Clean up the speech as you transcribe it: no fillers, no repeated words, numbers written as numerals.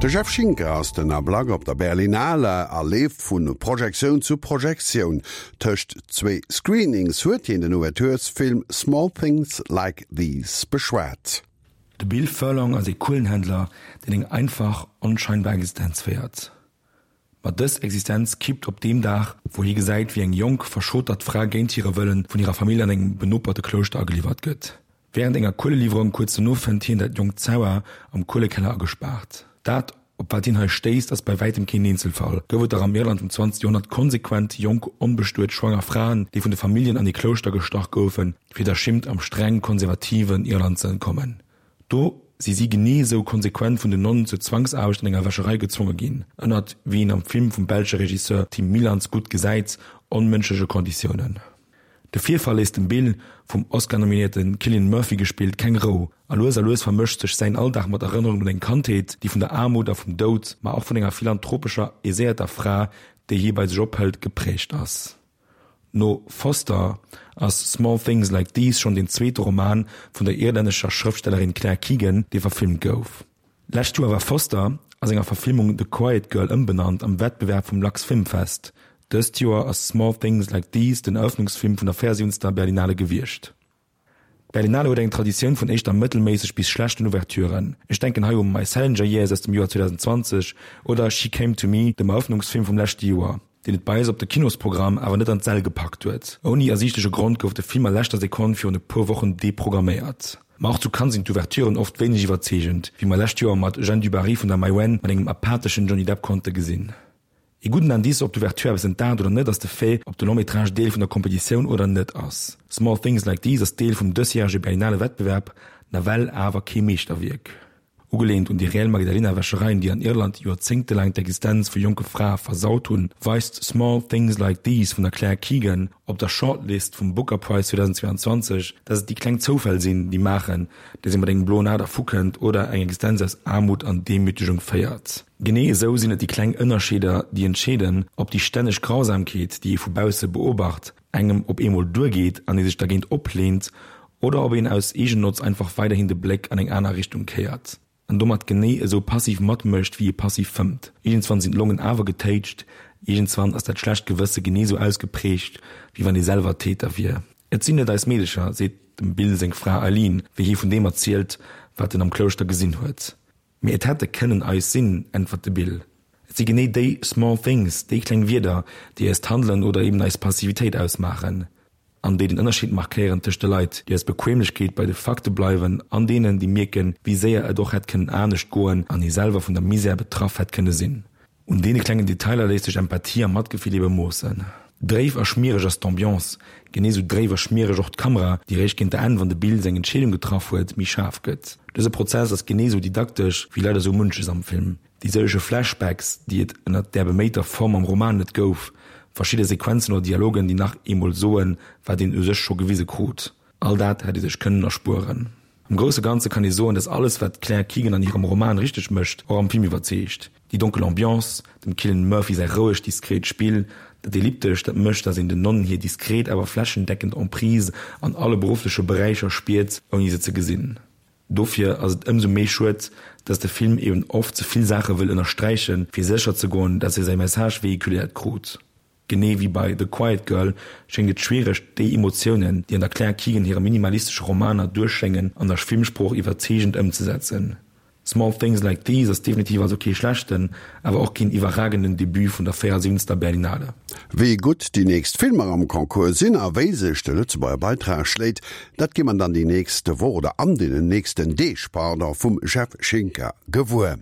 De Jeff Schinker ass den Ablack op der Berlinale a leeft vu Projektioun zu Projektioun. Tëscht zwéi Screenings huet hien den Ouverturesfilm Small Things Like These beschwat. De Bill Furlong ass ee Kuelenhändler, deen eng einfach, onscheinbar Existenz féiert. Ma dës Existenz kippt op deem Dag, wou hie gesäit, wéi eng jonk, verschotert Fra géint hire Wëllen vun hirer Famill an engem benoperte Klouschter ageliwwert gëtt. Wärend enger Kueleliwwerung kuerz dono fënnt hien dat jonkt Zauer am Kuelekeller agespaart. Dat, op wat hien hei stéisst, ass bei wäitem keen Eenzelfall. Gouf et dach am Irland vum 20. Joerhonnert konsequent jonk, onbestuet, schwanger Fraen, déi vun de Familljen an ee Klouschter gestach goufen, fir der Schimmt am streng konservativen Irland ze entkommen. Do si si genee esou konsequent vun den Nonnen zur Zwangsaarbecht an enger Wäscherei gezwonge ginn, ënnert, wéi een am Film vum belsche Regisseur Tim Mielants gutt gesäit, onmënschleche Konditiounen. De Virfall léisst dem Bill, vum Oscar-nominéierte Cillian Murphy gespillt, keng Rou, a lues a lues vermëscht sech säin Alldag mat Erënnerungen un eng Kandheet, déi vun der Aarmut a vum Doud, ma och vun enger philanthropescher, aiséierter Fra, déi hie bei sech ophëlt, geprägt ass. No Foster ass Small Things Like These schonn deen zweete Roman vun der irlännescher Schrëftstellerin Claire Keegan, dee verfilmt gouf. Lescht Joer war Foster, a senger Verfilmung The Quiet Girl ëmbenannt, am Wettbewerb vum Lux Film Fest. Dëst Joer ass Small Things Like These den Erëffnungsfilm vun der 74. Berlinale gewiescht. D'Berlinale huet eng Traditioun vun éischter mëttelméisseg bis schlechten Ouverturen. Ech denken hei u My Salinger Years aus dem Joer 2020 oder She Came to Me, dem Erëffnungsfilm vum leschte Joer, deen et bei eis op de Kinosprogramm awer net an d'Säll gepackt huet. Ouni ersiichtleche Grond gouf de Film a leschter Sekonn virun e puer Wochen deprogramméiert. Ma och zu Cannes sinn d'Ouverturen oft wéineg iwwerzeegend, wéi mer lescht Joer mat Jeanne du Barry vun der Maïwenn mat engem apatheschen Johnny Depp konnte gesinn. Ee gudden Indice, ob d'Ouverture eppes entdaacht oder net, ass de Fait, ob de Long-métrage Deel vun der Kompetitioun oder net ass. Small Things Like These ass Deel vum dësjärege Berlinale Wettbewerb, nawell awer kee Meeschterwierk. Ugeleent un déi reell Magdalena-Wäschereien, déi an Irland joerzéngtelaang d'Existenz vu jonke Frae versaut hunn, weist Small Things Like These vun der Claire Keegan op der Shortlist vum Booker Prize 2022, dass et déi kleng Zoufäll sinn, déi maachen, dass ee mat engem bloen A dervukënnt oder eng Existenz aus Aarmut an Demütegung féiert. Genee esou sinn et déi kleng Ënnerscheeder, déi entscheeden, ob déi stänneg Grausamkeet, déi ee vu bausse beobacht, engem op eemol duergeet an ee sech dergéint opleent, oder ob een aus Eegennotz einfach weiderhin de Bléck an eng aner Richtung kéiert an domat genee esou passiv matmécht, wéi ee passiv fëmmt. Iergendswann sinn d'Longen awer getéitscht, iergendswann ass dat schlecht Gewësse genee esou ausgeprägt, wéi wann ee selwer Täter wier. Et sinn net eis Meedecher, seet dem Bill seng Fra Eileen, wéi hie vun deem erzielt, wat en am Klouschter gesinn huet. Mee et hätte kënnen eis sinn, äntwert de Bill. Et si genee déi small things, déi kleng Wierder, déi eist Handelen oder eben eis Passivitéit ausmaachen an déi den Ënnerscheed markéieren tëscht de Leit, déi aus Bequemlechkeet bei de Fakte bleiwen an deenen, déi mierken, wéi séier et och hätt kënnen anescht goen an ee selwer vun der Misär betraff hätt kënne sinn. Un deene klengen Detailer léisst sech Empathie a Matgefill ebe moossen. Dréif a schmiereg ass d'Ambiance, genee sou dréif a schmiereg och d'Kamera, déi réischt géint der Enn, wann de Bill seng Entscheedung getraff huet, méi schaarf gëtt. Dëse Prozess ass genee sou didaktesch wéi leider sou munches am Film. Déi sëllege Flashbacks, déi et ënnert där beméiter Form am Roman net gouf, verschidde Sequenzen oder Dialogen, déi nach eemol soen, wat een u sech scho gewise krut, all dat hätt ee sech kënnen erspueren. Am grousse Ganze kann ee soen, dass alles wat d'Claire Keegan an hirem Roman richteg mécht, och am Film iwwerzeegt. Déi donkel Ambiance, dem Cillian Murphy säi rouegt, diskret Spill, dat Elliptescht, dat mécht, dass een den Nonnen hir diskret awer flächendeckend Emprise an alle beruffleche Beräicher spiert, ouni se ze gesinn. Dofir ass et ëmsou méi schued, dass de Film eben oft ze vill Saache wëll ënnersträichen, fir sécher ze goen, dass e säi Message vehiculéiert krut. Genee wéi bei The Quiet Girl schéngt et schwiereg, déi Emotiounen, déi an der Claire Keegan hire minimalistesche Romaner duerchschéngen, an der Filmsprooch iwwerzeegend ëmzesetzen. Small Things Like These ass definitiv also kee schlechten, awer och keen iwwerragenden Debut vun der 74. Berlinale. Wéi gutt déi nächst Filmer am Concours sinn a wéi sech de Lëtzebuerger Beitrag schléit, dat gi mer dann déi nächst Woch oder an deenen nächsten Deeg, pardon, vum Jeff Schinker gewuer.